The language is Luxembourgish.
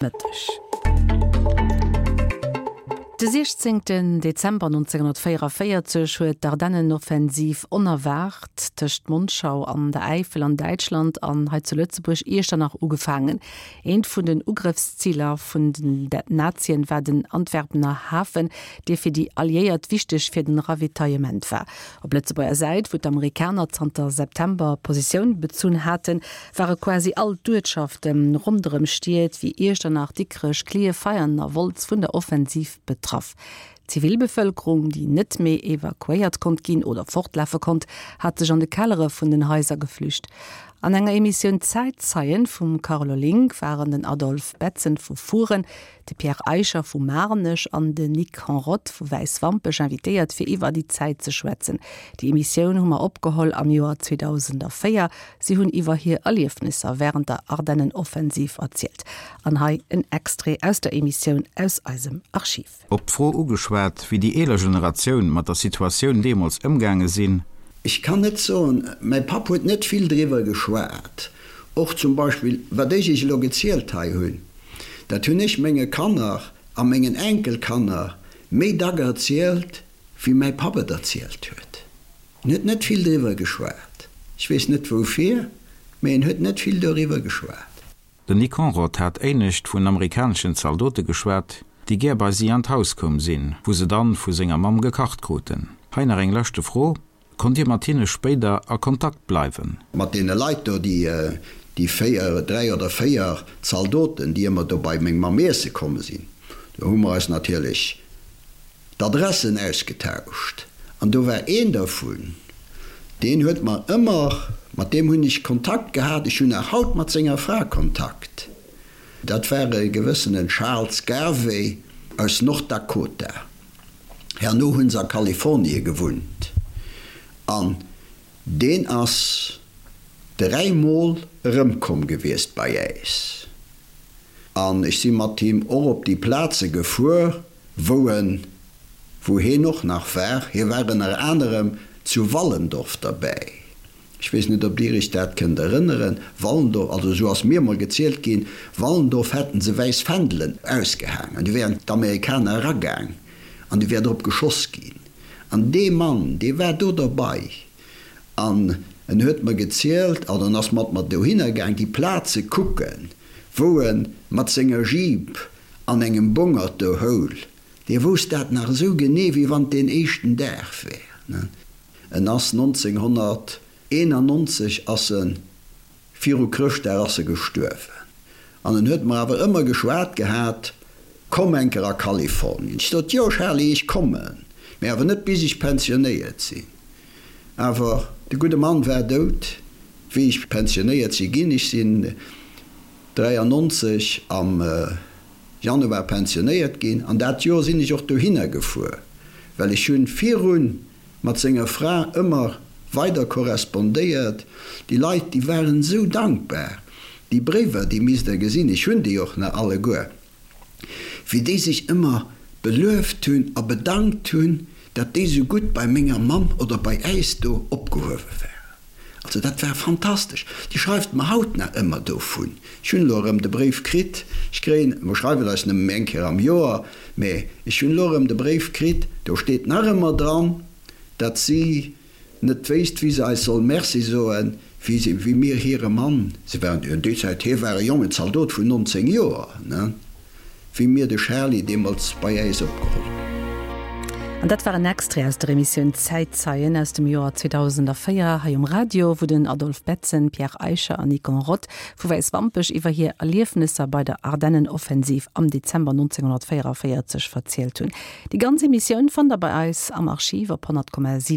Mëtteg. De 16 Dezember 1944 huet d'Ardennenoffensiv onerwaart tëscht Monschau an der Äifel an Däitschland an hei zu Lëtzebuerg Iechternach ugefaangen. Eent vun den Ugrëffsziler vun den Nazien war den Antwerpener Hafen, dee fir déi Alliéiert wichteg fir den Ravitaillement war. Op Lëtzebuerger Säit, wou d'Amerikaner zanter September Positioun bezunn haten, ware quasi all d'Uertschafte ronderëm Stied wéi Iechternach, Dikrech, Klierf, Veianen a Wolz vun der Offensiv betraff. D'Zivilbevëlkerung, déi net méi evakuéiert konnt ginn oder fortlafe konnt, hat sech an de Kellere vun den Haiser geflücht. An enger Emissioun Zäitzeien vum Carlo Link waren den Adolphe Betzen vu Furen, De Pierre Eicher vu Maarnech an den Nic Henrotte vu Wäiswampech invitéiert fir iwwer déi Zäit ze schwätzen. Déi Emissioun hu mer opgeholl am Joer 2004. Si hunn iwwer hir Erliefnisser wärend der Ardennenoffensiv erzielt. An hei en Extrait aus der Emissioun aus eisem Archiv. Op d'Fro ugeschwat, wéi déi eeler Generatioun mat der Situatioun deemools ëmgaange sinn. Ech kann net soen, mäi Papp huet net vill driwwer geschwat. Och zum Beispill, wat ech Iech elo gezielt hei hunn, Dat hunn ech menge Kanner a mengen Enkelkanner méi dack erzielt, wéi mäi Papp et erzielt huet. En huet net vill driwwer geschwat. Ech weess net woufir, mee en huet net vill doriwwer geschwat. Den Nick Conrod hat éinescht vun amerikaneschen Zaldote geschwat, déi gär bei si an d'Haus koum sinn, wou se dann vu senger Mamm gekacht kruten. Hei nach eng leschte Fro, Konnt Dir mat hinne spéider a Kontakt bleiwen? Mat deene Leit do, déi, déi 4, 3 oder 4 Zaldoten, déi ëmmer do bei meng Mamm iesse komm sinn, do hu mer eis natierlech d'Adressen ausgetauscht. An do war een dervun, deen huet mer ëmmer, mat deem hunn ech Kontakt gehat, ech hunn nach haut mat senger Fra Kontakt, dat war e gewëssenen Charles Garvey aus Nord-Dakota. Herno hunn se a Kalifornie gewunnt an deen ass 3 mol erëmkomm gewiesst bei äis an ech si mat him och op déi Plaze gefuer wou en, wou heen och nach war. Hie war ënner anerem zu Wallendorf derbäi. Ech weess net, ob Dir Iech dat kënnt erënneren, Wallendorf, also esou ass mir emol gezielt ginn, Wallendorf hätten se wäiss Fändelen ausgehaang an du wären d'Amerikaner eragaang an du wär drop geschoss ginn. An dee Mann, dee war do derbei an en huet mer gezielt, also en ass mat mer dohinner gaang déi Plaze kucken, wou e mat senger Jeep an engem Bongert do houl. Dee wousst dat nach esou genee, wéi wann et deen éischten Dag wär. En ass 1991 ass en, viru Chrëschtdag ass e gestuerwen. An en huet mer awer ëmmer geschwat gehat, Komm eng Kéier a Kalifornien. Ech sot, Jo Charly, ech kommen, mee awer net bis ech pensionéiert sinn. Awer de gudde Mann war dout, wéi ech pensionéiert si ginn. Ech sinn 93 am Januar pensionéiert ginn an dat Joer sinn ech och dohinner gefuer, well ech hunn virun mat senger Fra ëmmer weider korrespondéiert. Déi Leit, déi waren esou dankbar. Déi Bréiwer, déi misst Der gesinn, ech hunn déi och nach alleguer, wéi déi sech ëmmer belueft hunn a bedankt hunn, datt déi esou gutt bei menger Mamm oder bei äis do opgehuewe waren. Also dat war fantastesch. Déi schreift mer haut nach ëmmer dovun. Ech hunn elo erëm de Bréif kritt. Ech kréien, mer schreiwen eis nëmme méi eng Kéier am Joer, mä ech hunn elo erëm de Bréif kritt, do steet nach ëmmer dran, datt si net wéisst, wéi se eis soll Merci soen, wéi si, wéi mir hire Mann, se waren jo déi Zäit, hie war e jongen Zaldot vun 19 Joer, ne? Wéi mir de Charly deemools bei äis opgeholl hunn. An dat war en Extrait aus der Emissioun Zäitzeien aus dem Joer 2004 hei um Radio, wou den Adolphe Betzen, Pierre Eicher an Nicon Roth vu Wäiswampech iwwer hir Erliefnesser bei der Ardennenoffensiv am Dezember 1944 verzielt hunn. Déi ganz Emissioun fannt der bei eis am Archiv op 100,7.